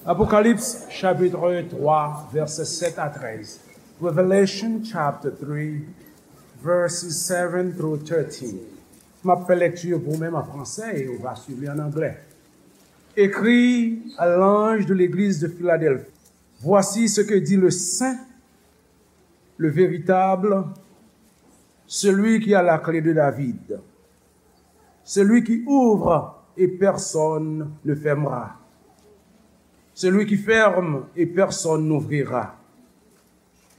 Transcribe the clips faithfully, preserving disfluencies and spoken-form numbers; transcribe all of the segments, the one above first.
Apocalypse chapitre trois, versets sept à treize. Revelation chapter three, verses seven through thirteen. M ap fè lekti pou ou menm an fransè e ou va swiv li an anglè. Écrit à l'ange de l'église de Philadelphie. Voici ce que dit le saint, le véritable, celui qui a la clé de David, celui qui ouvre et personne ne fermera, celui qui ferme et personne n'ouvrira.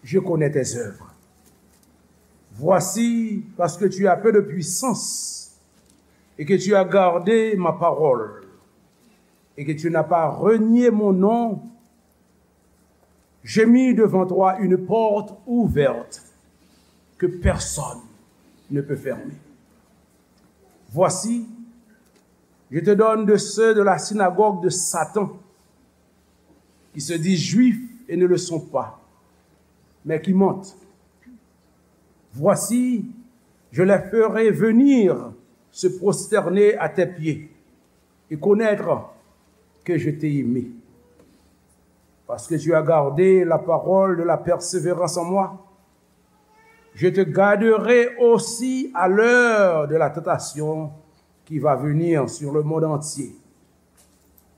Je connais tes œuvres. Voici, parce que tu as peu de puissance et que tu as gardé ma parole et que tu n'as pas renié mon nom, j'ai mis devant toi une porte ouverte que personne ne peut fermer. Voici, je te donne de ceux de la synagogue de Satan, qui se disent juifs et ne le sont pas, mais qui mentent. Voici, je les ferai venir se prosterner à tes pieds et connaître que je t'ai aimé. Parce que tu as gardé la parole de la persévérance en moi, je te garderai aussi à l'heure de la tentation qui va venir sur le monde entier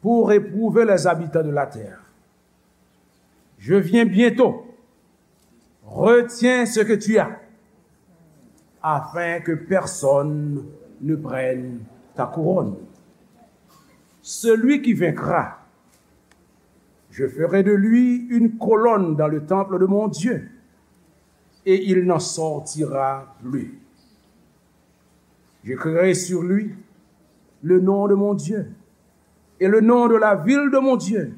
pour éprouver les habitants de la terre. Je viens bientôt. Retiens ce que tu as, afin que personne ne prenne ta couronne. Celui qui vaincra, je ferai de lui une colonne dans le temple de mon Dieu, et il n'en sortira plus. J'écrirai sur lui le nom de mon Dieu et le nom de la ville de mon Dieu,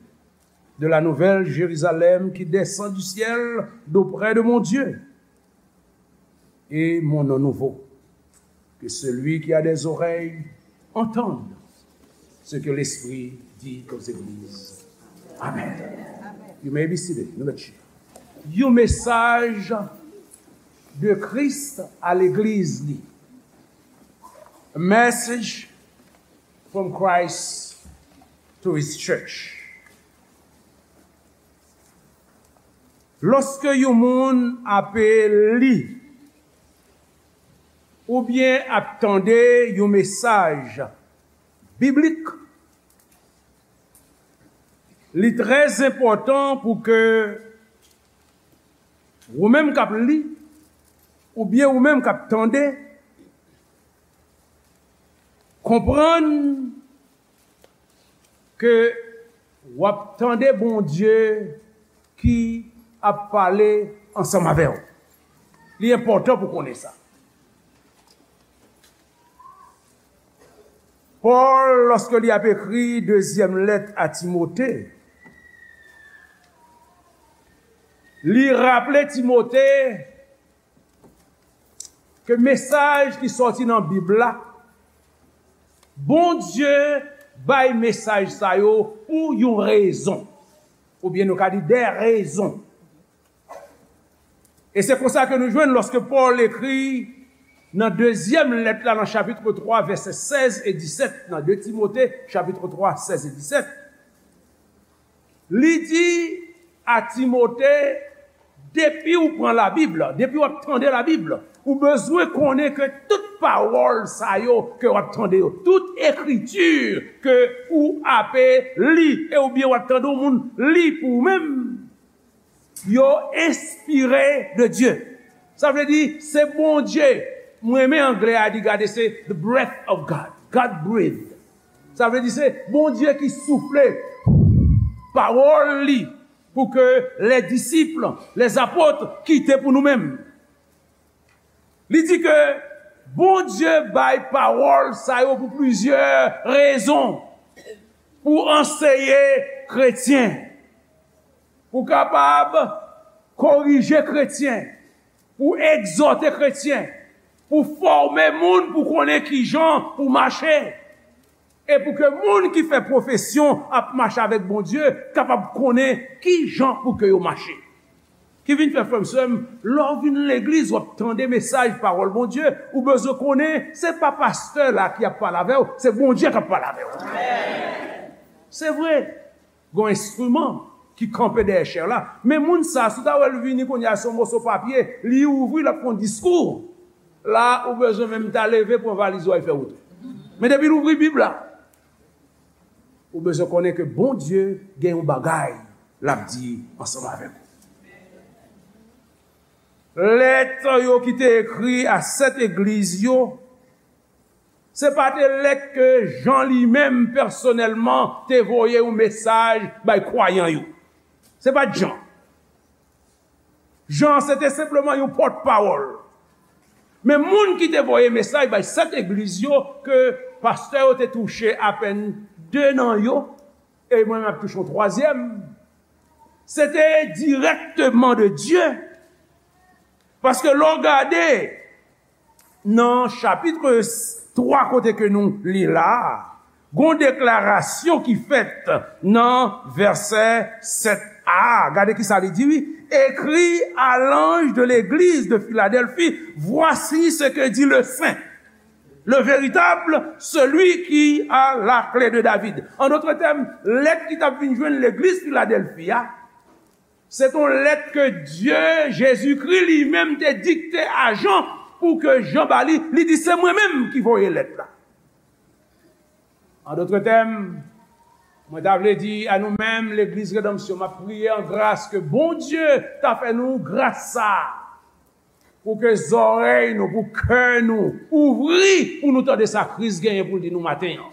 de la nouvelle Jérusalem qui descend du ciel d'auprès de mon Dieu, et mon nom nouveau. Que celui qui a des oreilles entende ce que l'Esprit dit aux églises. Amen. You may be seated. Nou mèt chita. Yon mesaj de Kris a legliz li. A message from Christ to his church. Lòske yon moun ape li oubyen ap tande yon mesaj biblik, li trè enpòtan pou ke ou menm k ap li, oubyen ou menm k ap tande, konprann ke w ap tande Bondye ki ap pale ansanm avè w. Li enpòtan pou konnen sa. Pòl, lòske li ap ekri dezyèm lèt a Timote, li raple Timote ke mesaj ki sòti nan Bib la, Bondye bay mesaj sa yo pou yon rezon. Oubyen nou ka di de rezon. E se konsa ke nou jwenn lòske Pòl ekri nan dezyèm lèt la, nan chapit twa, vèsè sèz e disèt, nan de Timote, chapit twa, sèz e disèt, li di a Timote, depi w pran Labib, depi w ap tande Labib, ou bezwen konnen ke tout pawòl sa yo ke w ap tande yo, tout ekriti ke ou ape li, e oubyen w ap tande yon moun li pou ou menm, yo enspire de Dye. Sa vle di, se Bondye. Mwen renmen anglè a di, gade, se the breath of God. God breathe. Sa vle di, se Bondye ki soufle pawòl li pou ke les disciples, les apôtres kite pou nou menm. Li di ke Bondye bay pawòl sa yo pou plizyè rezon. Pou anseye kretyen, pou kapab korije kretyen, pou egzòte kretyen, pou fòme moun pou konnen kijan pou mache, e pou ke moun ki fè pwofesyon ap mache avèk Bondye kapab konnen kijan pou ke yo mache. Ki vin fè, frè m, sè m, lè w vin legliz, w ap tande mesaj pawòl Bondye, ou bezwen konnen se pa pastè la ki ap pale avè w, se Bondye k ap pale avè w. Se vre. Gon enstriman ki kanpe dèyè chè la. Men moun sa, si w ta wè l vini kounye a, se yon moso papye, li ouvri, l ap fè yon diskou. La, ou bezwen menm ta leve, pran valiz ou, al fè wout ou. Men depi l ouvri Bib la, ou bezwen konnen ke Bondye gen yon bagay l ap di ansanm avèk ou. Lèt yo ki te ekri a sèt egliz yo, se pa te lèt ke Jan li menm pèsonèlman te voye yon mesaj bay kwayan yo. Se pa t Jan. Jan se te senpleman yon pòtpawòl. Men moun ki te voye mesaj bay sèt egliz yo, ke pastè yo te touche apèn de nan yo, e mwen menm ap touche yon twazyèm, se te dirèkteman de Dye. Paske lè w gade nan chapit twa kote ke nou li la a, gon deklarasyon ki fèt nan vèsè sèt a. Gade ki sa li di, wi. Écrit à l'ange de l'église de Philadelphie, voici ce que dit le saint, le véritable, celui qui a la clé de David. An dòt tèm, lèt ki t ap vin jwenn legliz Filadèlfi a, se t on lèt ke Dye, Jezikri li menm te dikte a Jan pou ke Jan ba li. Li di, "Se mwen menm ki voye lèt la." An dòt tèm, mwen ta vle di a nou menm, Legliz Redanmsyon, m ap priye an gras ke Bondye ta fè nou gras sa a, pou ke zòrèy nou, pou kè nou ouvri, pou nou tande sa Kris genyen pou l di nou maten an.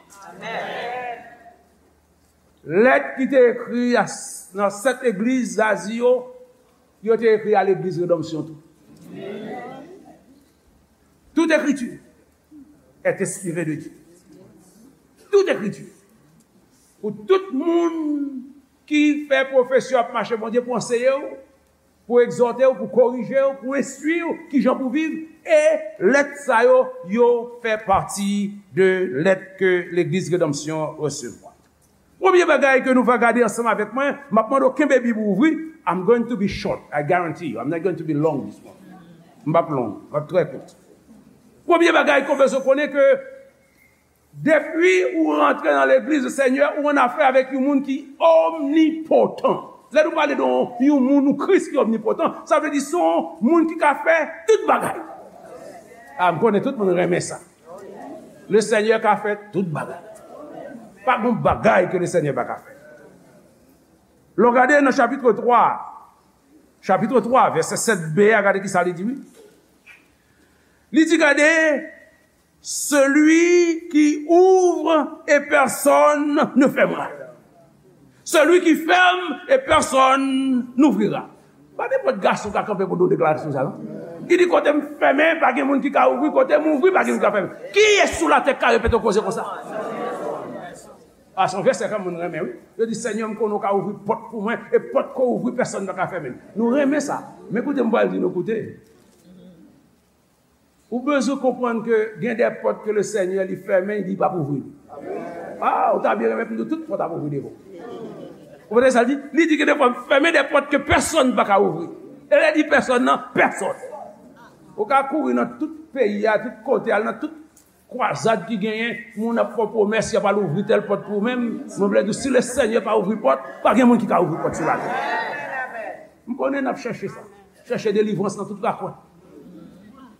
Lèt ki te ekri a, nan sèt egliz Azi yo, yo te ekri a legliz Redanmsyon tou. Tout écriture est inspirée de Dieu. Tout écriture. Pou tout moun ki fè pwofesyon ap mache Bondye pou anseye w, pou egzòte w, pou korije w, pou enstwi w, kijan pou viv, e lèt sa yo, yo fè pati de lèt ke Legliz Redanmsyon resevwa. Premye bagay ke nou va gade ansanm avèk mwen, m ap mande w kenbe Bib ou ouvri. I'm going to be short, I guarantee you. I'm not going to be long this morning. M p ap long, m ap trè kout. Premye bagay ke w bezwen konnen ke depi ou rantre nan legliz Senyè, ou annafè avèk yon moun ki omnipotan. Lè nou pale de yon, yon moun ou Kris ki omnipotan, sa vle di se yon moun ki ka fè tout bagay. A, m konnen tout moun renmen sa. Le Senyè ka fè tout bagay. Pa gon bagay ke le Senyè pa ka fè. Lè w gade nan chapit twa, chapit twa, vèsè sèt b a, gade ki sa li di, wi. Li di, gade, celui qui ouvre et personne ne fermera. Celui qui ferme et personne n'ouvrira. Pa nenpòt gason ka kanpe pou nou deklarasyon sa, non. Li di, kote m fèmen, pa gen moun ki ka ouvri, kote m ouvri, pa gen moun ki ka fèmen. Kiyès sou latè k ka repete yon koze konsa? A, se yon vèsè ke moun renmen, wi. Yo di, Senyè, m konnen w ka ouvri pòt pou mwen, e pòt ke w ouvri, pèsonn pa ka fèmen l. Nou renmen sa. Men koute, m pral di nou, koute. Ou bezwen konprann ke gen de pòt ke le Senyè li fèmen, li p ap ouvri. A, ou ta byen renmen pou nou tout pòt ap ouvri devan w. Ou konprann sa l di? Li di gen de fwa m fèmen de pòt ke pèsonn pa ka ouvri. E lè di pèsonn nan, pèsonn. Ou ka kouri nan tout peyi a, tout kote, al nan tout kwazad ki genyen, moun ap fè w pwomès, y ap al ouvri tèl pòt pou ou menm. Mwen vle di w, si le Senyè pa ouvri pòt, pa gen moun ki ka ouvri pòt sou latè. M konnen n ap chèche sa. Chèche delivrans nan tout rakwen.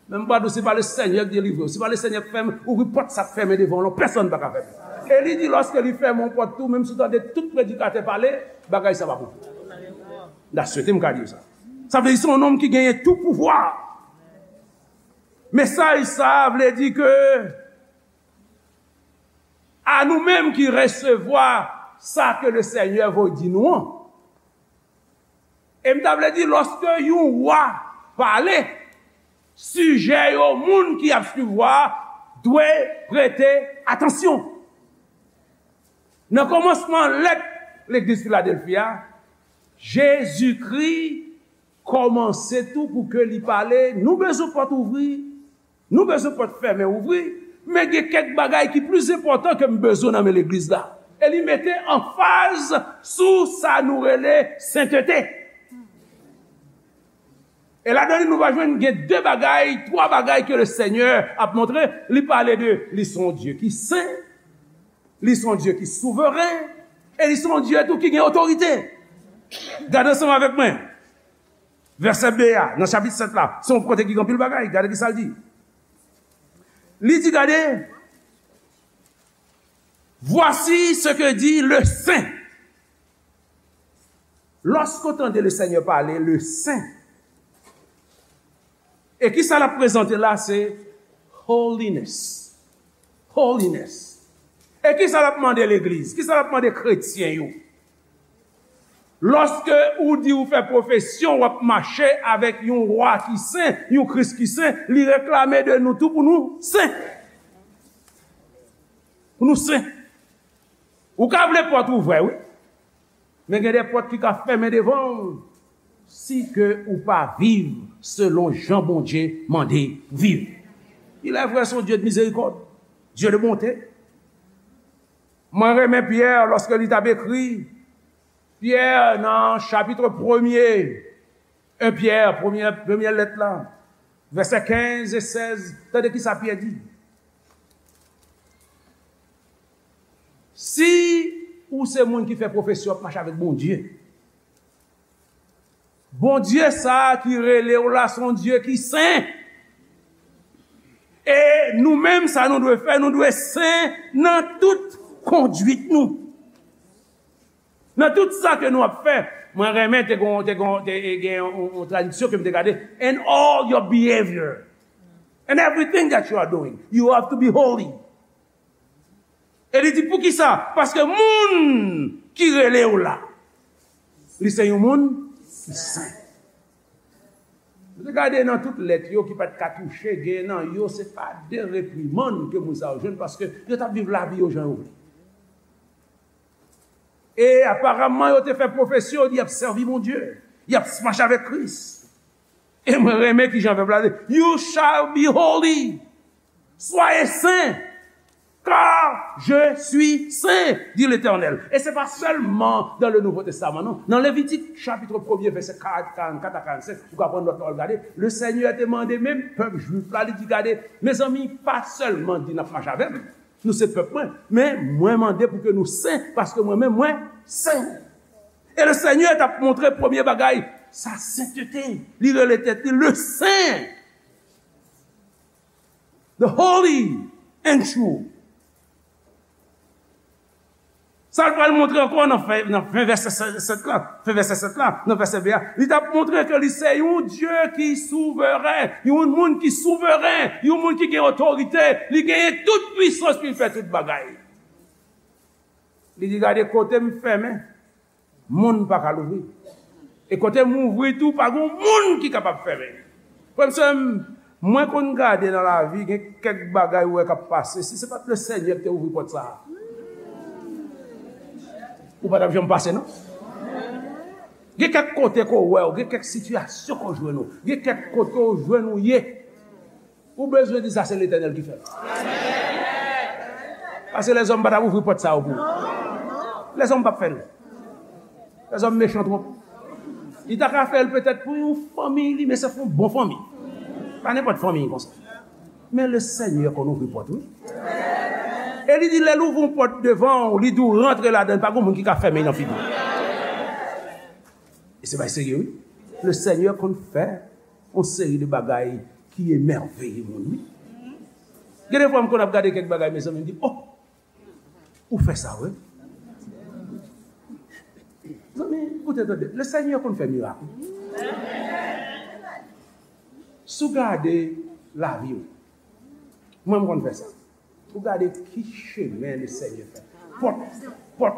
Men m pa di w, se pa le Senyè k delivre w. Se pa le Senyè k fèmen, ouvri pòt sa k fèmen devan w lan, pèsonn pa ka fèmen. E li di, lòske li fèmen yon pòt tou, menm si w tande tout predikatè pale, bagay sa p ap ouvri. M ta swete m ka di w sa. Sa vle di se yon nonm ki genyen tout pouvwa. Mesaj sa a vle di ke a nou menm ki resevwa sa ke le Senyè voye di nou an. E m ta vle di, lòske yon wa pale, sijè yo, moun ki ap swiv wa a dwe prete atansyon. Nan kòmansman lèt legliz Filadèlfi a, Jezikri kòmanse tou pou ke li pale, nou bezwen pòt ouvri, nou bezwen pòt fèmen ouvri, men gen kèk bagay ki plis enpòtan ke m bezwen nan men legliz la. E li mete anfaz sou sa nou rele sentete. E ladan li, nou va jwenn gen de bagay, twa bagay ke le Senyè ap montre. Li pale de, li se yon Dye ki sen, li se yon Dye ki souveren, E li se yon Dye tou ki gen otorite. Gade ansanm avèk mwen. Vèsè B a, nan chapit sèt la, se yon kote ki gen anpil bagay. Gade ki sa l di. Li di, gade, voici ce que dit le Saint. Lorsqu'on tande le Seigneur parler, le Saint, e ki sa l ap prezante la, se holiness. Holiness. E ki sa l ap mande legliz? Ki sa l ap mande kretyen yo? Lòske ou di ou fè pwofesyon, w ap mache avèk yon wa ki sen, yon Kris ki sen, li reklame de nou tou pou nou sen. Pou nou sen. Ou ka vle pòt ouvè, wi. Men gen de pòt ki ka fèmen devan w si ke ou pa viv selon jan Bondye mande viv. Il est vrai, c'est un Dieu de miséricorde, Dieu de bonté. Mwen renmen Pyè lòske li t ap ekri. Pyè nan chapit premye, en Pyè, premye, premye lèt la, vèsè kenz e sèz, tande ki sa Pyè di. Si ou se moun ki fè pwofesyon ap mache avèk Bondye, Bondye sa a ki rele w la, se yon Dye ki sen. E nou menm, sa nou dwe fè, nou dwe sen nan tout kondwit nou. Nan tout sa ke nou ap fè, mwen renmen te gon, te gon, te gen yon, yon tradiksyon ke m te gade, "In all your behavior, and everything that you are doing, you have to be holy." E li di, "Poukisa?" Paske moun ki rele w la, li se yon moun ki sen. Nou te gade nan tout lèt yo ki pa t ka touche, gen nan yo, se pa de reprimann ke moun sa yo jwenn, paske yo t ap viv lavi yo jan yo vle. E aparamman, yo te fè pwofesyon, y ap sèvi Bondye, y ap mache avèk Kris. E mwen renmen ki jan vèb la di, "You shall be holy." Soyez saints, car je suis saint, dit l'Éternel. E se pa sèlman dans le Nouveau Testament, non. Nan Levitik, chapit premye, vèsè karannkat a karannsenk, ou ka pran nòt la, w al gade. Le Senyè te mande menm pèp jwif la, li di, "Gade, mezanmi, pa sèlman di n ap mache avè m, nou se pèp mwen, men mwen mande pou ke nou sen, paske mwen menm, mwen sen." E le Senyè t ap montre premye bagay, sa sentete, li rele tèt li le sen. The holy and true. Sa l pral montre ankò nan fen, nan fen vèsè sèt la, fen vèsè sèt la, nan vèsè B a, li t ap montre ke li se yon Dye ki souveren, yon moun ki souveren, yon moun ki gen otorite, li genyen tout pwisans pou l fè tout bagay. Li di, "Gade kote m fèmen, moun pa ka louvri. E kote m ouvri tou, pa gen moun ki kapab fèmen." Frè m, sè m, mwen konn gade nan lavi, gen kèk bagay ou wè k ap pase. Si se pa t le Senyè ki te ouvri pòt sa a, ou pa t ap janm pase, non. Gen kèk kote ke w wè w, gen kèk sitiyasyon ke w jwenn ou, gen kèk kote w jwenn ou ye. Ou bezwen di sa se Letènèl ki fè l. Paske lèzòm pa t ap ouvri pòt sa yo pou ou. Lèzòm p ap fè l. Lèzòm mechan twòp. Li ta ka fè l petèt pou yon fanmi li, men se pou yon bon fanmi. Pa nenpòt fanmi konsa. Men le Senyè konn ouvri pòt, wi. E li di, lè l ouvri yon pòt devan w, li di w rantre ladan l, pa gen moun ki ka fèmen nan figi w. E se bay serye, wi. Le Senyè konn fè yon seri de bagay ki emèveye moun, wi. Gen de fwa, m konn ap gade kèk bagay, mezanmi, m di, "Oh, ou fè sa, wi." Zanmi, koute, tande. Le Senyè konn fè mirak, wi. Si w gade lavi w, mwen, m konn fè sa. Ou gade ki chemen le Senyè fè. Pòt, pòt,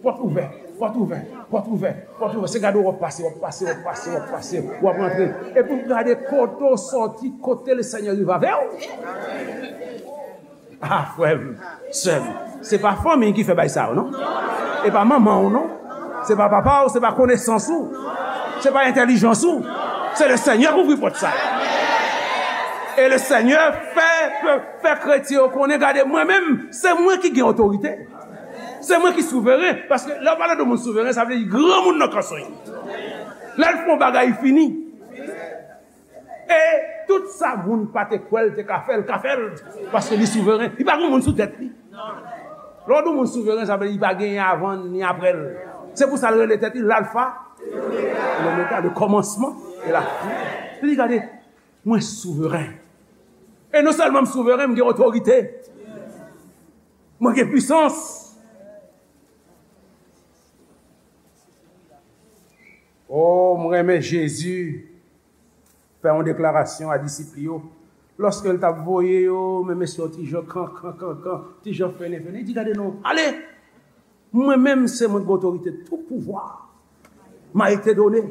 pòt ouvè, pòt ouvè, pòt ouvè, pòt ouvè. Se gade w ap pase, w ap pase, w ap pase, w ap pase, w ap rantre. Epi w gade kote w sòti, kote le Senyè rive avè w. Ah, frè m, sè m, se pa fanmi ki fè bay sa yo, non. E pa manman w, non. Se pa papa w, se pa konesans ou. Se pa entèlijans ou. Se le Senyè k ouvri pòt sa. E le Senyè fè, fè, fè kretyen yo konnen, gade, mwen menm, se mwen ki gen otorite. Se mwen ki souveren. Paske lè w pale de moun souveren, sa vle di granmoun nan kanson. Lè l fè yon bagay, li fini. E tout sa moun pa te kwè l te ka fè, l ka fè l. Paske li souveren. Li pa gen moun sou tèt li. Lè w di yon moun souveren, sa vle di li pa genyen avan ni apre l. Se pou sa l rele tèt li Lalfa e Lomega, le kòmansman e la fen. Li di, gade, mwen souveren. E non sèlman m souveren, m gen otorite. Mwen gen pwisans. Oh, m renmen Jezi fè yon deklarasyon a disip li yo. Lòske l t ap voye yo, men mesye yo ti jan kankan, kankan, ti jan fennen, fennen. Li di, gade non, ale! Mwen menm, se mwen ki gen otorite. Tout pouvoir m'a été donné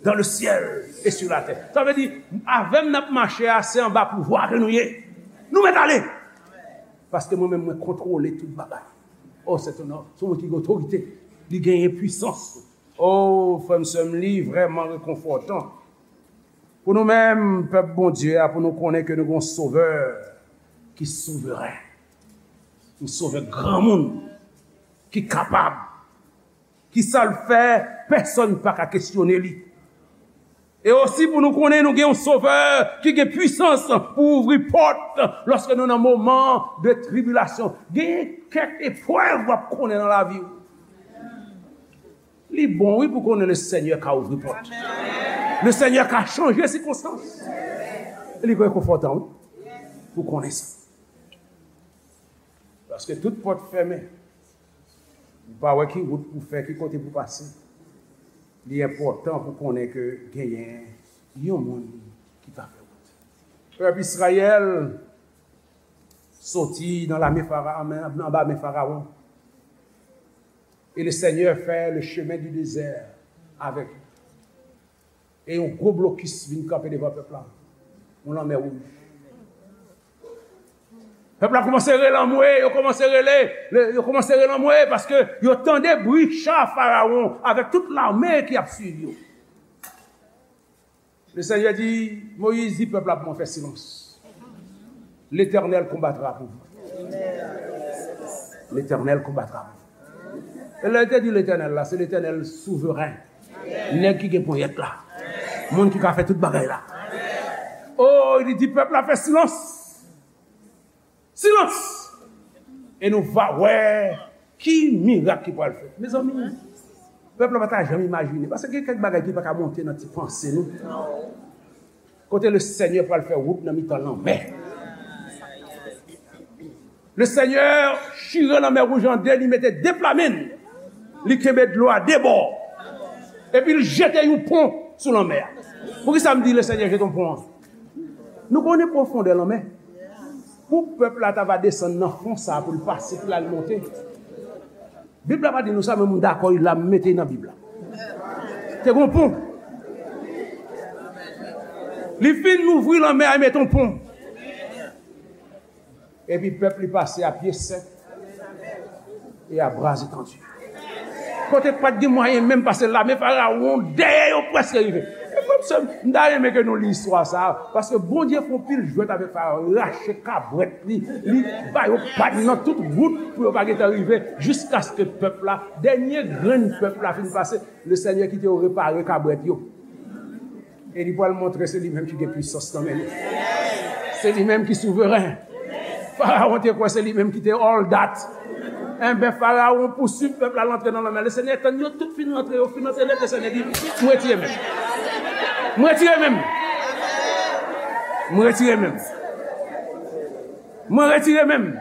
dans le ciel et sur la terre. Sa vle di, avè m n ap mache a, se anba pouvwa ke nou ye. Nou mèt ale! Paske mwen menm, mwen kontwole tout bagay. Oh, se yon, se yon moun ki gen otorite. Li genyen pwisans. Oh, frè m, sè m, li vrèman rekonfòtan pou nou menm, pèp Bondye a, pou nou konnen ke nou gen yon Sovè ki souveren. Yon Sovè granmoun, ki kapab, ki sa l fè, pèsonn pa ka kesyone li. E osi pou nou konnen nou gen yon Sovè ki gen pwisans pou ouvri pòt lòske nou nan moman de tribilasyon. Gen kèk eprèv w ap konnen nan lavi w. Li bon, wi, pou konnen le Senyè ka ouvri pòt. Le Senyè ka chanje sikonstans. Li rekonfòtan, wi, pou konnen sa. Paske tout pòt fèmen. Ou pa wè ki wout pou fè, ki kote pou pase. Li enpòtan pou konnen ke genyen yon moun ki ka fè wout. Pèp Izrayèl soti nan lame Fara-, anba men Farawon. E le Senyè fè le chemen di dezè avèk li. E yon gwo blokis vin kanpe devan pèp la. Yon lanmè wouj. Pèp la kòmanse rele anmwe, yo kòmanse rele, le- yo kòmanse rele anmwe paske yo tande bri cha Farawon avèk tout lame ki ap swiv yo. Le Senyè di, Moyiz, di pèp la pou mwen fè silans. L'Éternel combattra pour vous. L'Éternel combattra pour vous. E lè l te di Letènèl la, se Letènèl souveren. Nèg ki gen ponyèt la. Moun ki ka fè tout bagay la. Oh, li di pèp la fè silans. Silans! E nou va wè ki mirak ki pral fèt. Mezanmi, pèp la pa ta janm imajine. Paske gen kèk bagay ki pa ka monte nan ti panse nou. Kote le Senyè pral fè wout nan mitan lanmè. Le Senyè chire lanmè wouj an de, li mete de pla men l. Li kenbe dlo a de bò. Epi l jete yon pon sou lanmè a. Poukisa m di le Senyè jete yon pon an? Nou konnen pwofondè lanmè. Pou pèp la ta va desann nan fon sa a pou l pase, pou l al monte. Bib la pa di nou sa, men m dakò, l la mete nan Bib la. Te gon pon. Li fin ouvri lanmè a, mete yon pon. Epi pèp li pase a pye sèk e a bra etandi. Kote pa t gen mwayen menm pase lame Farawon dèyè yo prèske rive. E frè m, sè m, m ta renmen ke nou li istwa sa a, paske Bondye fè yon pil jwèt avèk Farawon, rache kabwèt li, li ba yo pad nan tout wout pou yo pa gentan rive, jiskaske pèp la, dènye grenn pèp la fin pase, le Senyè kite yo repare kabwèt yo. E li pral montre se li menm ki gen pwisans nan men li. Se li menm ki souveren. Farawon te kwè se li menm ki te all that. Enben, Farawon pouswiv pèp la, l antre nan lanmè. Le Senyè tann yo tout fin rantre, yo fin rantre nèt, le Senyè di, m retire men m. M retire men m. M retire men m. Mwen retire men m.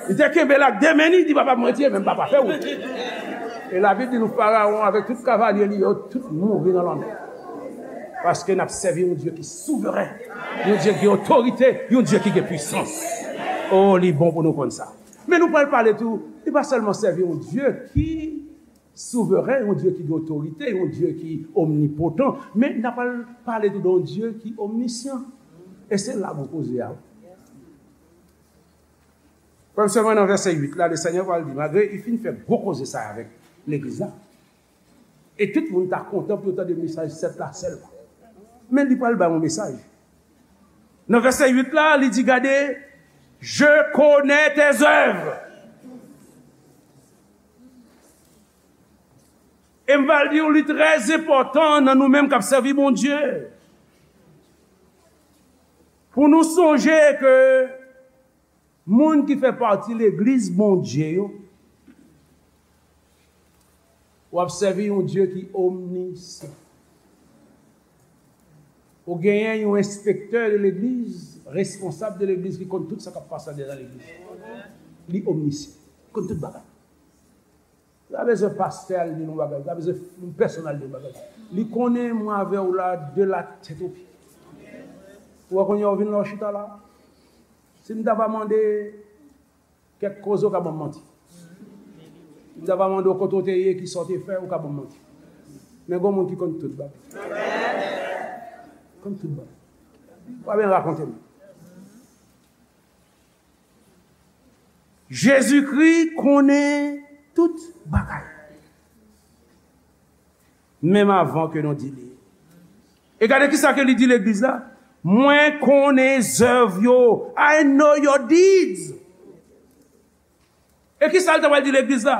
Li te kenbe l ak de men li, di, papa, mwen retire men m, papa, fè wout. E Labib di nou, Farawon avèk tout kavalye li yo, tout mouri nan lanmè. Paske n ap sèvi yon Dye ki souveren, yon Dye ki gen otorite, yon Dye ki gen pwisans. Oh, li bon pou nou konn sa. Men nou pral pale tou, li pa sèlman sèvi yon Dye ki souveren, yon Dye ki gen otorite, yon Dye ki omnipotan, men n ap pral pale tou de yon Dye ki omnisyan. E se la gwo koze a. Premye sèlman nan vèsè uit la, le Senyè pral di, malgre li fin fè gwo koze sa avèk legliz la, e tout moun ta kontan pou yo tande mesaj sèt la sèlman. Men li pral bay yon mesaj. Nan vèsè uit la, li di, gade, je connais tes œuvres. E m pral di w, li trè enpòtan nan nou menm k ap sèvi Bondye, pou nou sonje ke Moun ki fè pati legliz Bondye yo, w ap sèvi yon Dye ki omnisyan. Ou genyen yon enspektè de legliz, responsab de legliz ki konn tout sa k ap pase anndan legliz. Li omnisyan. Li konn tout bagay. Li pa bezwen pastè al di l yon bagay. Li pa bezwen moun pèsonn al di l yon bagay. Li konnen mwen avè w la de la tèt o pye. Ou wè kounye a w vin la w chita la. Si m ta va mande kèk koze, ou ka ban m manti. Si m ta va mande w kote w te ye, kisa w te fè, ou ka ban m manti. Men gon moun ki konn tout bagay. Konn tout bagay. Ou pa bezwen rakonte m. Jezikri konnen tout bagay. Menm avan ke nou di li. E gade kisa ke li di legliz la. Mwen konnen zèv yo. I know your deeds. E kisa l ta pral di legliz la?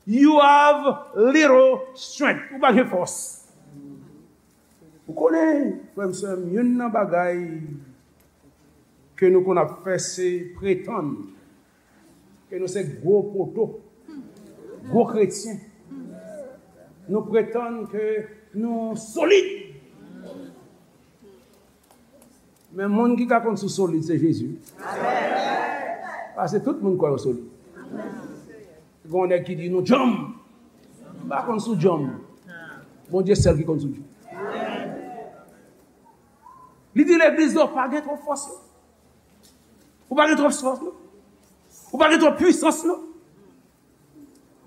You have little strength. Ou pa gen fòs. Ou konnen, frè m, sè m, youn nan bagay ke nou konn ap fè, se pretann ke nou se gwo poto, gwo kretyen. Nou pretann ke nou solid. Men moun ki ka konn si w solid, se Jezi. Paske tout moun kwè yo solid. Gen yon nèg ki di, nou djanm. M pa konn si w djanm. Bondye sèl ki konn si w djanm. Li di legliz yo pa gen twòp fòs, non. Ou pa gen twòp fòs, non. Ou pa gen twòp pwisans, non.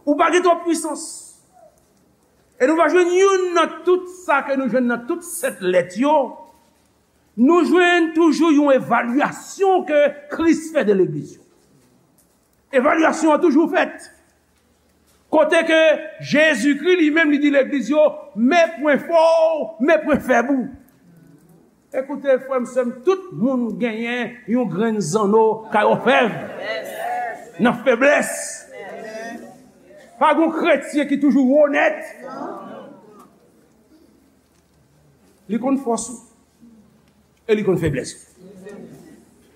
Ou pa gen twòp pwisans. E nou va jwenn youn nan tout sa ke nou jwenn nan tout sèt lèt yo. Nou jwenn toujou yon evalyasyon ke Kris fè de legliz yo. Evalyasyon an toujou fèt. Kote ke Jezikri li menm li di legliz yo, men pwen fò w, men pwen fèb ou. Ekoute, frè m, sè m, tout moun genyen yon grenn zanno kay òfèv nan feblès. Pa gon kretyen ki toujou onèt. Li konn fòs ou. E li konn feblès ou.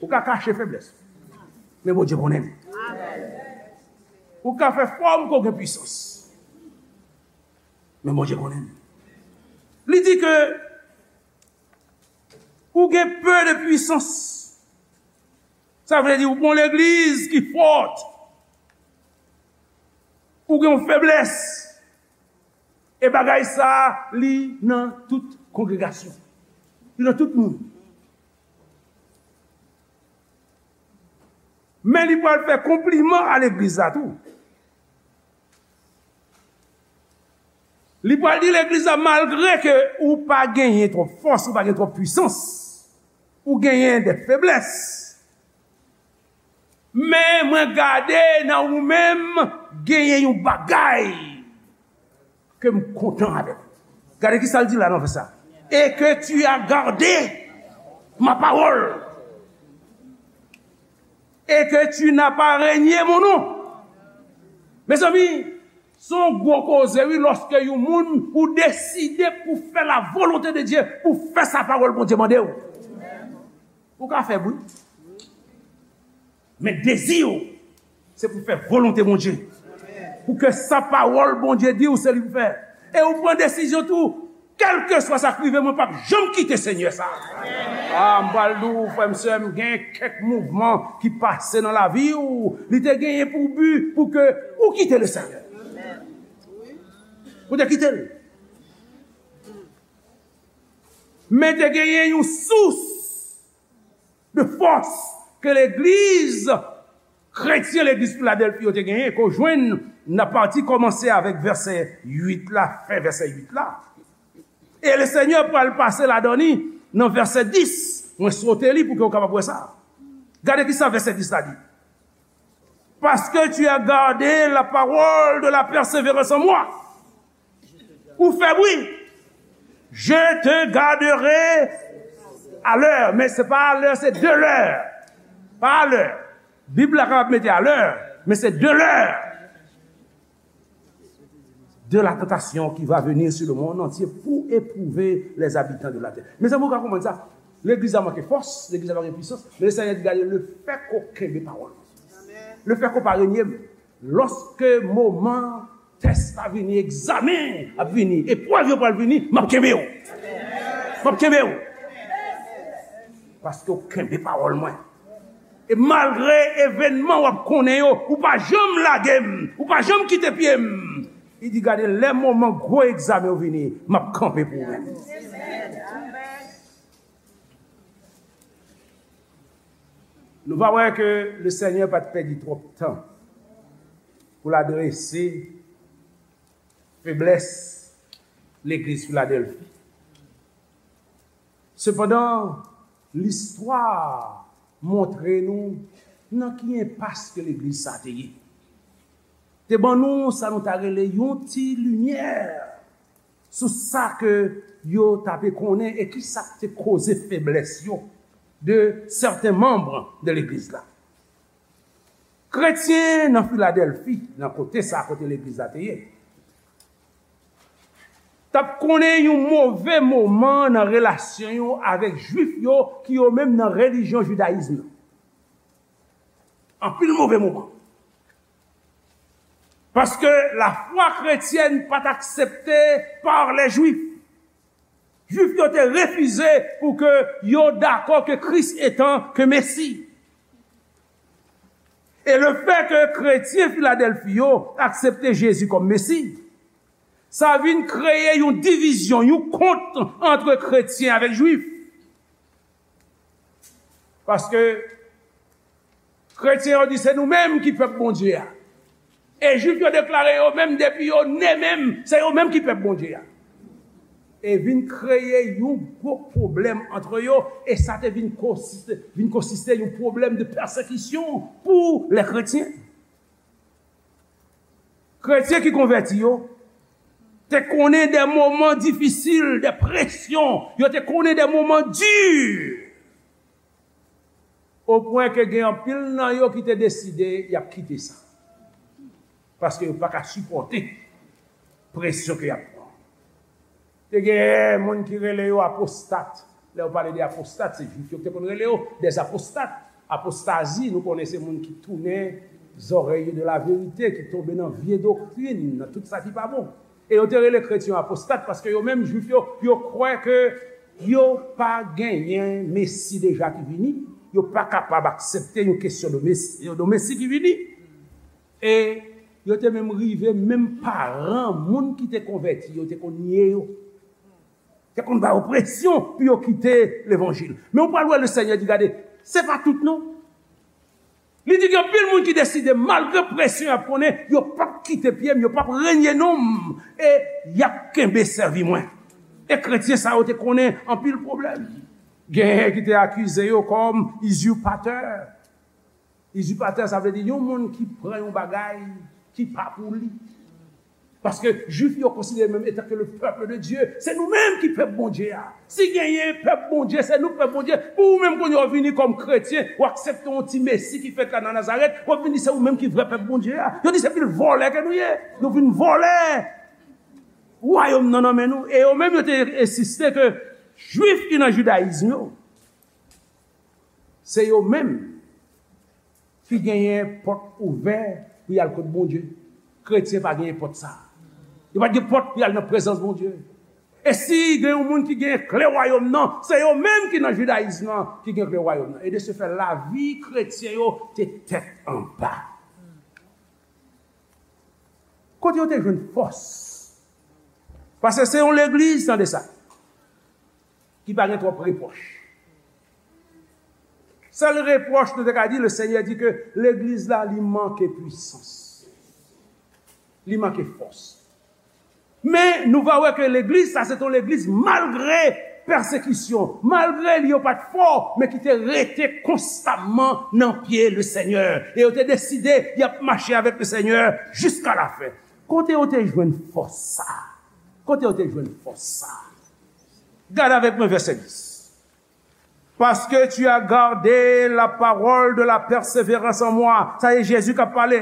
Ou ka kache feblès ou. Men Bondye konnen l. Ou ka fè fòm ke w gen pwisans. Men Bondye konnen l. Li di ke ou gen pe de pwisans. Sa vle di ou gon legliz ki fòt. Ou gen yon feblès. E bagay sa a, li nan tout kongregasyon. Li nan tout moun. Men li pral fè konpliman a legliz la tou. Li pral di legliz la, malgre ke ou pa genyen twòp fòs, ou pa gen twòp pwisans, ou genyen de feblès. Men mwen gade nan ou menm, genyen yon bagay ke m kontan avèk ou. Gade ki sa l di la nan vèsè sa. Et que tu as gardé ma parole. Et que tu n'as pas renié mon nom. Mezanmi, se yon gwo koze, wi, lòske yon moun ou deside pou fè la volonte de Dye, pou fè sa pawòl Bondye mande w. Ou ka fè bri. Men dezi w, se pou fè volonte Bondye. Pou ke sa pawòl Bondye di w, se li pou fè. E ou pran desizyon tou, kèlkeswa sa k rive, mwen p ap janm kite Senyè sa. A, m pral di w, frè m, sè m, gen kèk mouvman ki pase nan lavi w, li te genyen pou bi, pou ke ou kite Lesenyè. Ou te kite l. Men te genyen yon sous de fòs ke legliz kretyen, legliz Filadèlfi yo te genyen, ke w jwenn nan pati kòmanse avèk vèsè uit la, fen vèsè uit la. E Lesenyè pral pase ladan li nan vèsè dis. Mwen sote li pou ke w kapab wè sa. Gade ki sa vèsè dis la di. Parce que tu as gardé la parole de la persévérance en moi. Ou fè bri. Je te garderai à l'heure. Men se pa à l'heure, se de l'heure. Pa à l'heure. Bib la kapab mete à l'heure, men se de l'heure de la tentation qui va venir sur le monde entier pour éprouver les habitants de la terre. Mezanmi, ou ka konprann sa? Legliz la manke fòs, legliz la pa gen pwisans, men Lesenyè di, gade, lefètke w kenbe pawòl mwen, lefètke w pa renye m, lòske moman tès la vini, egzamen ap vini, eprèv yo pral vini, m ap kenbe w. M ap kenbe w. Paske w kenbe pawòl mwen. E malgre evènman w ap konnen yo, ou pa janm lage m, ou pa janm kite pye m. Li di, gade, lè moman gwo egzamen yo vini, m ap kanpe pou ou menm. Nou va wè ke Lesenyè pa t pèdi twòp tan pou l adrese feblès legliz Filadèlfi. Sepandan, listwa montre nou nan ki enpas ke legliz sa te ye. Te ban nou sa nou ta rele yon ti limyè sou sa ke yo ta pe konnen e ki sa k te koze feblès yo de sèten manm de legliz la. Kretyen nan Filadèlfi, nan kote sa kote legliz la te ye, t ap konnen yon move moman nan relasyon yo avèk Jwif yo ki yo menm nan relijyon jidayizm nan. Anpil move moman. Paske lafwa kretyèn pa t aksepte pa lè Jwif. Jwif yo te refize pou ke yo dakò ke Kris etan ke Mesi. E lefètke kretyen Filadèlfi yo aksepte Jezi kòm Mesi, sa vin kreye yon divizyon, yon kont ant kretyen avèk Jwif. Paske kretyen yo di se nou menm ki pèp Bondye a. E Jwif yo deklare yo menm depi yo ne menm, se yo menm ki pèp Bondye a. E vin kreye yon gwo pwoblèm ant yo, e sa te vin konsiste, vin konsiste yon pwoblèm de pèsekisyon pou lè kretyen. Kretyen ki konvèti yo te konnen de moman difisil, de presyon, yo te konnen de moman di. Opwen ke gen anpil nan yo ki te deside y ap kite sa. Paske yo pa ka sipòte presyon ke y ap pran. Te gen moun ki rele yo apostat. Lè yo pale de apostat, se Jwif yo ki te konn rele yo des apostat. Apostazi, nou konnen se moun ki tounen zòrèy yo de laverite, ki tonbe nan vye doktrin, nan tout sa ki pa bon. E yo te rele kretyen yo apostat paske yo menm, Jwif yo, yo kwè ke yo pa genyen Mesi deja ki vini, yo pa kapab aksepte yon kesyon de Mesi, de Mesi ki vini. E yo te menm rive, menm paran moun ki te konvèti yo te konn nye yo, te konn ba yo presyon pou yo kite levanjil. Men ou pral wè Lesenyè di, gade, se pa tout non. Li di gen anpil moun ki deside, malgre presyon y ap konnen, yo p ap kite pye m, yo p ap renye non m, e y ap kenbe sèvi mwen. E kretyen sa yo te konnen anpil pwoblèm. Genyen ki te akize yo kòm izipatè. Izipatè, sa vle di yon moun ki pran yon bagay ki pa pou li. Paske Jwif yo konsidere menm etan ke le peuple de Dieu, se nou menm ki pèp Bondye a. Si genyen pèp Bondye, se nou k pèp Bondye. Pou ou menm kounye a w vini kòm kretyen, w aksepte yon ti Mesi ki fèt la nan Nazarèt, w ap vin di se ou menm ki vrè pèp Bondye a. Yo di se pil vòlè ke nou ye. Nou vin vòlè wayòm nan nan men nou. E yo menm yo te ensiste ke Jwif ki nan jidayizm yo, se yo menm ki genyen pòt ouvè pou y al kot Bondye. Kretyen pa genyen pòt sa. Yo pa t gen pòt pou y al nan prezans Bondye. E si gen yon moun ki genyen kle wayòm nan, se yo menm ki nan jidayizm nan ki gen kle wayòm nan. E de se fè, lavi kretyen yo te tèt anba. Kote yo te jwenn fòs? Paske se yon legliz, tande sa, ki pa gen twòp repwòch. Sèl repwòch nou te ka di, Lesenyè di ke legliz la, li manke pwisans. Li manke fòs. Men nou va wè ke legliz sa, se te yon legliz malgre pèsekisyon, malgre li yo pa t fò, men ki te rete konstamman nan pye Lesenyè. E yo te deside y ap mache avèk Lesenyè jiska lafen. Kote yo te jwenn fòs sa? Kote yo te jwenn fòs sa? Gade avèk mwen vèsè dis. Parce que tu as gardé la parole de la persévérance en moi. Sa se Jezi k ap pale.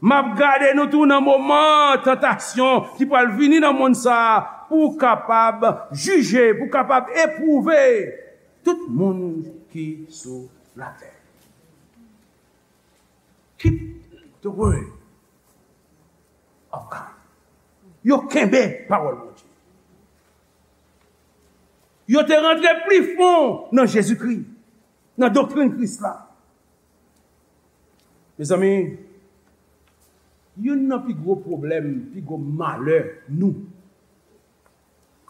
M ap gade nou tou nan moman tantasyon ki pral vini nan monn sa a. pou w kapab jije, pou w kapab epwouve tout moun ki sou latè. Keep the word of God. Yo kenbe pawòl Bondye. Yo te rantre pli fon nan Jezikri, nan doktrin Kris la. Mezanmi, youn nan pi gwo pwoblèm, pi gwo malè nou,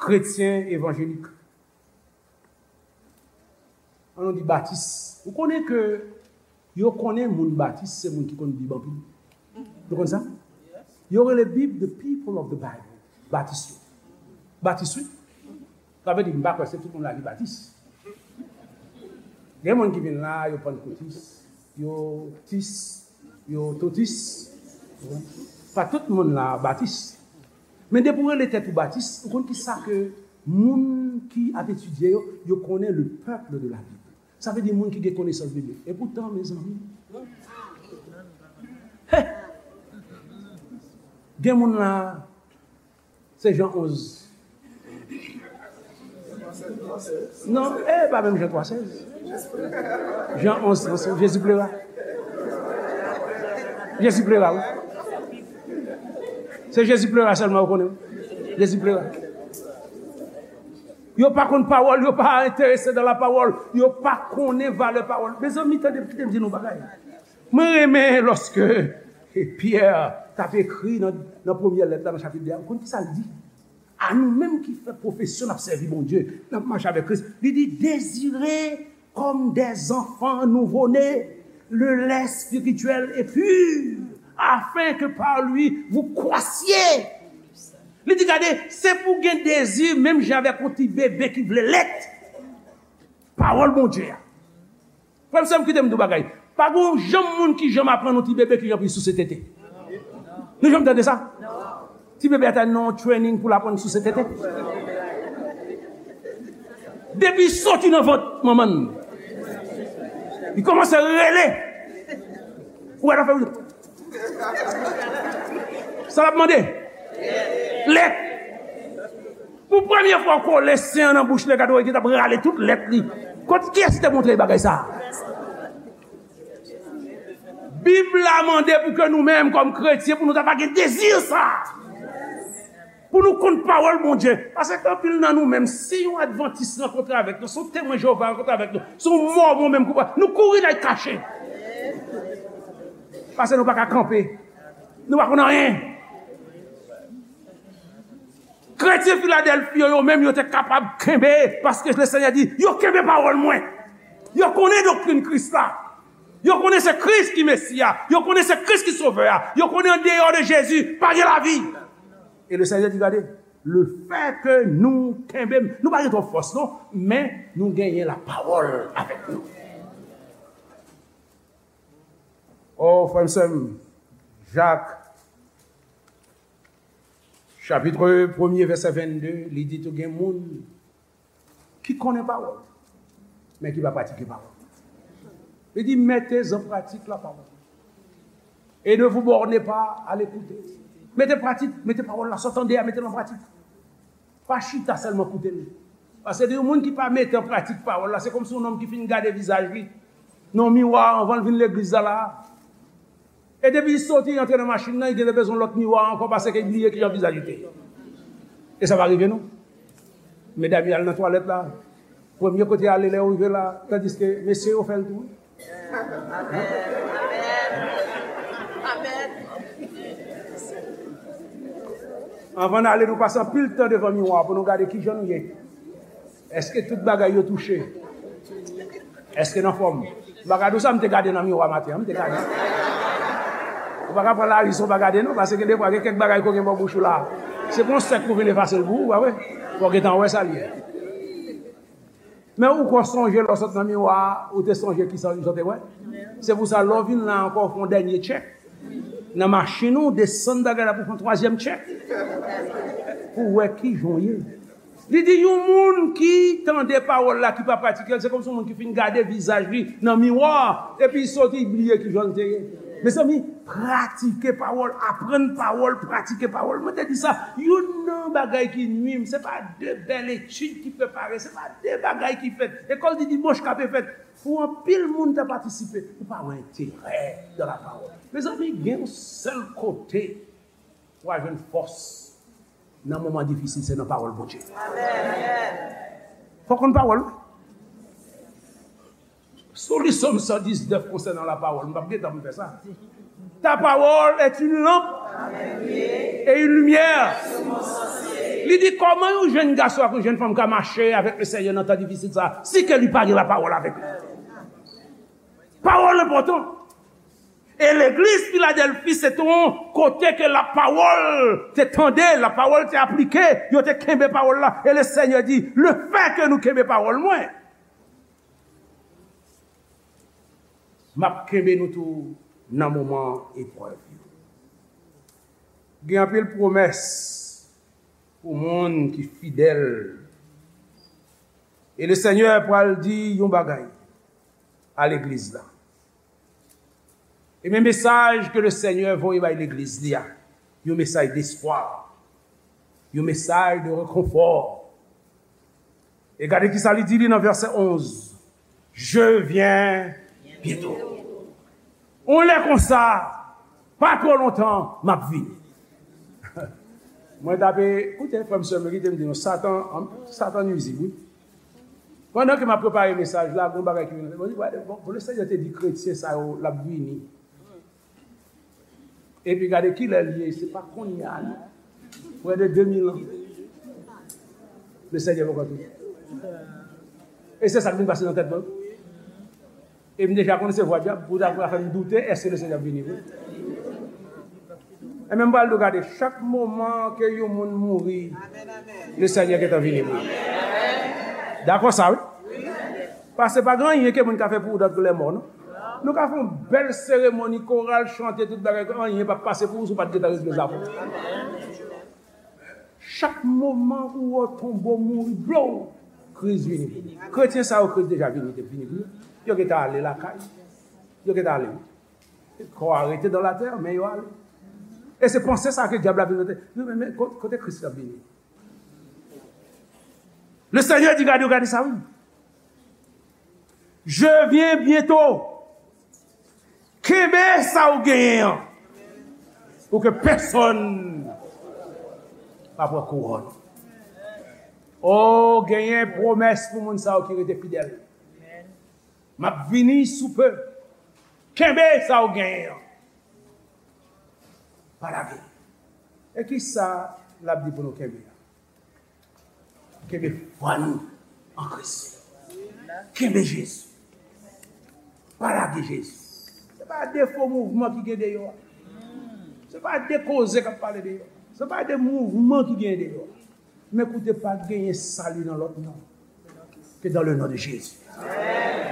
kretyen evanjelik, ann nou di batis. Ou konnen ke yo konnen moun batis se moun ki konn Bib anpil. Nou konn sa? Yo rele Bib the people of the Bible. Batis yo. Batis, wi. Sa vle di, m pa kwè se tout moun la ki batis. Gen moun ki vin la, yo pannkotis, yo tis, yo totis. Pa tout moun la batis. Men depi w rele tèt ou batis, ou konn ki sa ke moun ki ap etidye yo, yo konnen le peuple de la Bible. Sa vle di moun ki gen konesans biblik. E poutan, mezanmi, he, gen moun la, se Jan onz. Non, e pa menm Jan twa sèz. Jan onz, Jan sèz, Jezi plera. Jezi plera, wi. Se Jezi plera sèlman ou konnen, wi. Jezi plera. Yo pa konn pawòl, yo pa enterese dan la pawòl, yo pa konnen valè pawòl. Mezanmi, tande, kite m di nou bagay. Mwen renmen lòske Pyè t ap ekri nan, nan premyè lèt la, nan chapit de a, ou konn ki sa l di? A nou menm ki fè pwofesyon n ap sèvi Bondye, n ap mache avèk Kris, li di, dezire comme des enfants nouveau-nés, le lait spirituel et pur, afin que par lui vous croissiez. Li di, gade, se pou gen dezi, menm jan avèk yon ti bebe ki vle lèt. Pawòl Bondye a. Frè m, sè m, kite m di w bagay. Pa gen yon janm moun ki janm aprann yon ti bebe ki jan pou l souse tete. Nou janm tande sa? Ti bebe a ta nan yon training pou l aprann souse tete. Depi l soti nan vant manman l, li kòmanse rele. Ou wè l ap fè, sa l ap mande? Lèt. Pou premye fwa w kole sen an nan bouch li, gade w, li t ap rale tout lèt li. Kot, kiyès ki te montre l bagay sa a? Bib la mande pou ke nou menm, kòm kretyen, pou nou ta pa gen dezi sa a. Pou nou konn pawòl Bondye. Paske anpil nan nou menm, si yon advantis rankontre avèk nou, si yon temwen Jewova rankontre avèk nou, si yon mòmon menm koupab, nou kouri n al kache. Paske nou pa ka kanpe. Nou pa konn anyen. Kretyen Filadèlfi yo, yo menm, yo te kapab kenbe, paske Lesenyè di, yo kenbe pawòl mwen. Yo konnen doktrin Kris la. Yo konnen se Kris ki Mesi a. Yo konnen se Kris ki Sovè a. Yo konnen andeyò de Jezi, pa gen lavi. E Lesenyè di, gade, lefètke nou kenbe, nou pa gen twòp fòs, non, men nou genyen lapawòl avèk nou. O, frè m, sè m, Jak, chapit premye, vèsè vennde, li di tou gen moun ki konnen pawòl, men ki pa pratike pawòl. Li di, mettez en pratique la parole. Et ne vous bornez pas à l'écouter. Mete pratik, mete pawòl la, sa w tande a, mete l an pratik. Pa chita sèlman koute l. Paske de yon moun ki pa mete an pratik pawòl la, se kòmsi yon nonm ki fin gade vizaj li nan miwa anvan l vin legliz la la. E depi li soti, li antre nan machin nan, li genlè bezwen lòt miwa ankò paske li bliye kijan vizaj li te ye. E sa pa rive nou? Medam yo al nan twalèt la, premye kote y ale lè yo rive la, tandiske mesye yo fè l tou. Anvan n ale, nou pase anpil tan devan miwa pou nou gade kijan nou ye. Èske tout bagay yo touche? Èske n anfòm? M pa ka di w sa m te gade nan miwa maten an, m te gade. Ou pa ka pran lari san w pa gade non, paske gen defwa gen kèk bagay ko gen bò bouch ou la. Se pou yon sèk pou vin efase l pou ou, pa vre? Fò w gentan wè sa l ye. Men ou ko sonje lè w sot nan miwa a, ou te sonje kisa w te wè. Se pou sa, lè w vin la ankò, w fè yon dènye tchèk. Nan machin ou, desann bagay la pou fè yon twazyèm tchèk. Pou w wè kijan w ye. Li di, yon moun ki tande pawòl la, ki pa pratike l, se kòmsi yon moun ki fin gade vizaj li nan miwa, epi li soti, li bliye kijan l te ye. Mezanmi, pratike pawòl, aprann pawòl, pratike pawòl. Mwen te di sa, youn nan yon bagay ki nwi m, se pa de bèl etid ki prepare, se pa de bagay ki fèt. Lekòl di dimanch k ape fèt, pou anpil moun ta patisipe, ou pa wè enterè nan lapawòl. Mezanmi, gen yon sèl kote w a jwenn fòs nan moman difisil, se nan pawòl Bondye. Fò w konn pawòl ou. Sou li Sòm san diznèf konsènan lapawòl, m p ap gen tan pou m fè sa. Ta parole est une lampe et une lumière. Li di, kòman yon jèn gason ak yon jèn fanm ka mache avèk le Senyè nan tan difisil sa, si ke li pa gen lapawòl avèk li? Pawòl enpòtan. E legliz Filadèlfi se te yon kote ke lapawòl te tande, lapawòl te aplike, yo te kenbe pawòl la. E le Senyè di, le fè ke nou kenbe pawòl mwen, m ap kenbe nou tou nan moman eprèv yo. Gen anpil pwomès pou moun ki fidèl. E le Senyè pral di yon bagay a legliz la. E men mesaj ke le Senyè voye bay legliz li a, yon mesaj despwa, yon mesaj de rekonfò. E gade ki sa li di li nan vèsè onz, je viens bientôt. On lè konsa, pa twò lontan, m ap vini. Mwen t ape, koute, frè m, sè m, kite m di nou, Satan, Satan nwizib, wi. Pandan ke m ap prepare mesaj la, gen yon bagay ki vin nan tèt mwen, mwen di, gade, bon, bon, le Senyè te di kretyen sa yo, l ap vini. Epi gade kilè l ye, se pa kounye a, non. Près de deux mille ans. Le Senyè poko vini. E se sa k vin pase nan tèt mwen. E m deja konn se vwa dyab, pou ta, pou ta fè m doute, èske le Senyè ap vini vre? E men m pral di w, gade, chak moman ke yon moun mouri, le Senyè gentan vini vre. Dakò sa, wi? Paske pa gen anyen ke moun ka fè pou ou dòt ke lèmò, non? Nou ka fè yon bèl seremoni, koral chante, tout bagay, anyen p ap pase pou ou si w pa t gentan regle zafè w. Chak moman ou wè tonbo mouri, blow, Kris vini. Kretyen sa yo, Kris deja vini, te vini pou yo. Yo gentan ale lakay. Yo gentan ale. Kò a rete dans la terre, men yo ale. E se panse sa ke dyab la vin mete. Men, men, men, ko-, kote Kris la vini? Le Senyè di, gade, gade sa, wi. Je viens bientôt. Kenbe sa ou genyen an, pou ke pèsonn pa pran kouwòn. O, genyen pwomès pou moun sa yo ki rete fidèl. M ap vini sou pe. Kenbe sa ou genyen an. Pa lage. E ki sa l ap di pou nou kenbe a? Kenbe fwa nou an Kris. Kenbe Jezi. Pa lage Jezi. Se pa de fo mouvman ki gen deyò a. Se pa de koze k ap pale deyò. Se pa de mouvman ki gen deyò a. Men koute, pa genyen sali nan lòt non ke dans le nom de Jésus.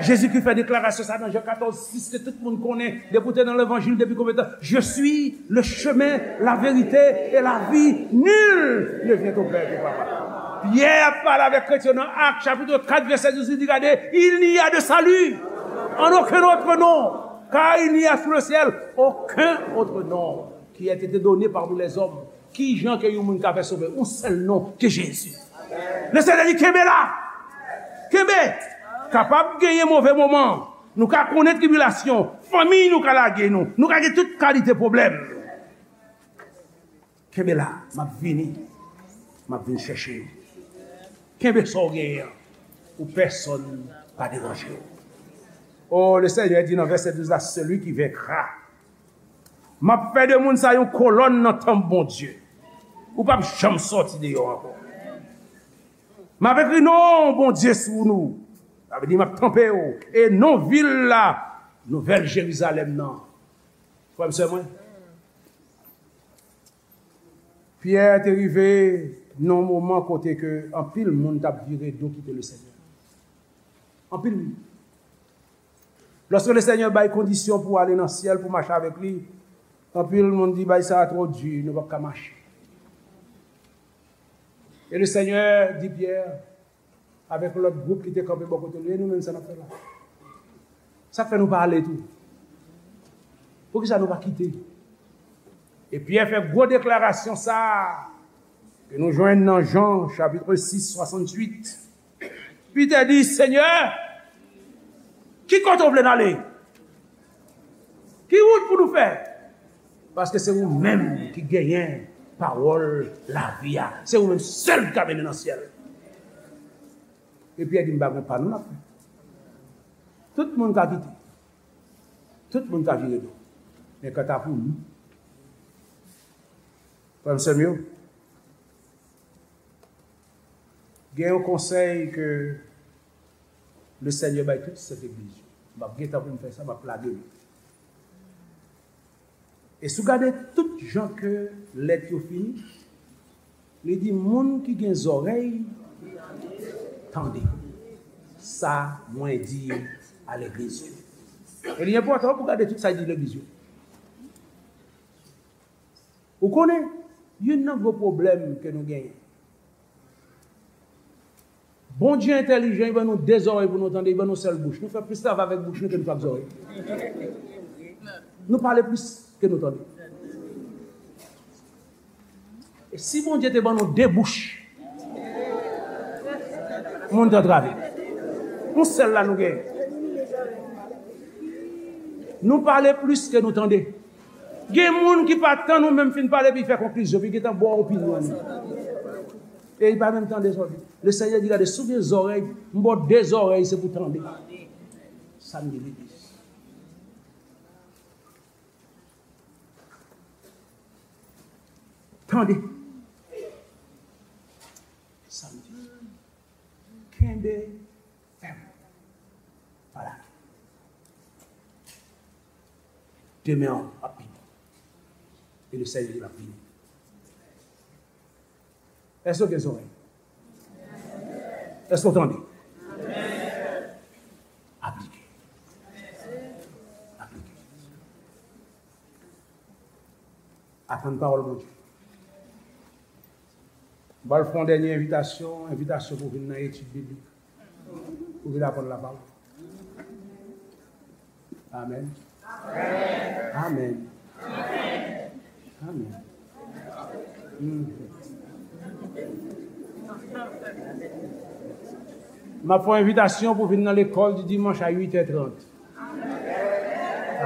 Jezi ki fè deklarasyon sa nan Jan katòz sis ke tout moun konnen, depi w te nan levanjil depi konbyen tan, je suis le chemin, la vérité et la vie, nul ne vient au Père que par moi. Pyè ap pale avèk kretyen nan Ak chapit kat vèsè douz, li di, gade, il n'y a de salut en aucun autre nom, car il n'y a sous le ciel aucun autre nom qui a été donné parmi les hommes. Ki jan ke yon moun ka fè sove? Yon sèl non, ke Jezi. Le Senyè di, kenbe la. Kenbe. Kapab genyen move moman. Nou ka konnen tribilasyon. Fanmi nou ka lage nou. Nou ka gen tout kalite pwoblèm. Kenbe la. M ap vini. M ap vin chèche nou. Kenbe sa w genyen an. Pou pèsonn pa deranje w. Oh, le Senyè di nan vèsè douz la, celui qui vaincra, m ap fè de moun sa yon kolòn nan tanp Bondye. Ou p ap janm sòti deyò ankò. M ap ekri non Bondye sou nou. Sa vle di m ap tanpe w. E non vil la, Nouvèl Jerizalèm nan. Frè m, sè mwen, Pyè te rive nan yon moman kote ke anpil moun t ap vire do kite le Senyè. Anpil moun. Lòske le Senyè bay kondisyon pou w ale nan syèl, pou w mache avèk li, anpil moun di, bagay sa a twò di, nou p ap ka mache. E le Senyè di Pyè, avèk lòt gwoup ki te kanpe bò kote l yo, e nou menm, sa n ap fè la? Sa k fè nou pa ale tou? Poukisa nou pa kite? E Pyè fè gwo deklarasyon sa a. Ke nou jwenn nan Jan, chapit sis, swasanntuit. Pitè di, Senyè, ki kote w vle n ale? Ki wout pou nou fè? Paske se ou menm ki genyen pawòl lavi a. Se ou menm sèl ki ka mennen nan syèl. E Pyè di, m pa gen pa nou n ap fè. Tout moun ka kite. Tout moun ka vire do. Men kanta pou nou, frè m, sè m yo, gen yon konsèy ke Lesenyè bay tout sent legliz yo. M ap gentan pou m fè sa, m ap lage l. E si w gade tout jan ke lèt yo fini, li di, moun ki gen zòrèy, tande sa mwen di a legliz yo. E li enpòtan pou w gade tout sa l di legliz yo. Ou konnen, youn nan gwo pwoblèm ke nou genyen, Bondye entèlijan, li ban nou de zòrèy pou nou tande, li ban nou sèl bouch. Nou fè plis travay avèk bouch nou ke nou fè ak zòrèy. Nou pale plis ke nou tande. E si Bondye te ban nou de bouch, moun t antrave. Yon sèl la nou genyen. Nou pale plis ke nou tande. Gen moun ki pa tann ou menm fin pale, epi fè konklizyon, epi gentan ba w opinyon li. E li pa menm tande sa w di. Lesenyè di, gade, si w gen zòrèy, m ba w de zòrèy, se pou tande. Sa m di legliz. Tande. Sa m di. Kenbe fèm. Pa lage. Demen an ap vini. E Lesenyè di l ap vini. Èske w gen zòrèy? Èske w tande? Aplike. Aplike. Atann pawòl Bondye. M pral fè yon dènye envitasyon, envitasyon pou vin nan etid biblik. Pou vin aprann lapawòl. Amèn. Amèn. Amèn. Mhm. M ap fè yon envitasyon pou vin nan lekòl di dimanch a uit è trant.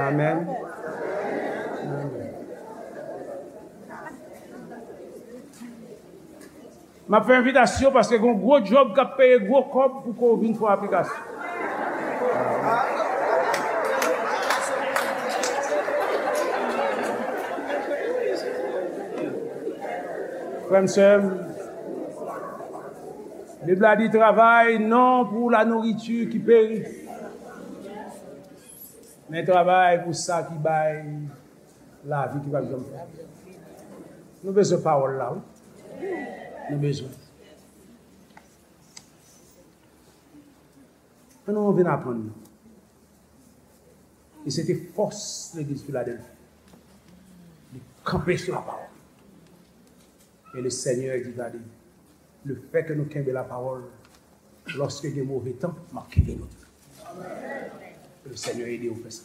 Amèn. Amèn. M ap fè envitasyon paske gen yon gwo djòb k ap peye gwo kòb pou ke w vin fè yon aplikasyon. Frè m, sè m, Bib la di, travay non pou la nourriture qui périt, men travay pou sa ki bay lavi ki p ap janm fini. Nou bezwen pawòl la, wi. Nou bezwen. Ann nou vin aprann nou. E se te fòs legliz Filadèlfi. Li kanpe sou lapawòl. E Lesenyè di, gade, lefètke nou kenbe lapawòl, lòske gen move tan, m ap kenbe nou tou. Ke Lesenyè ede w fè sa.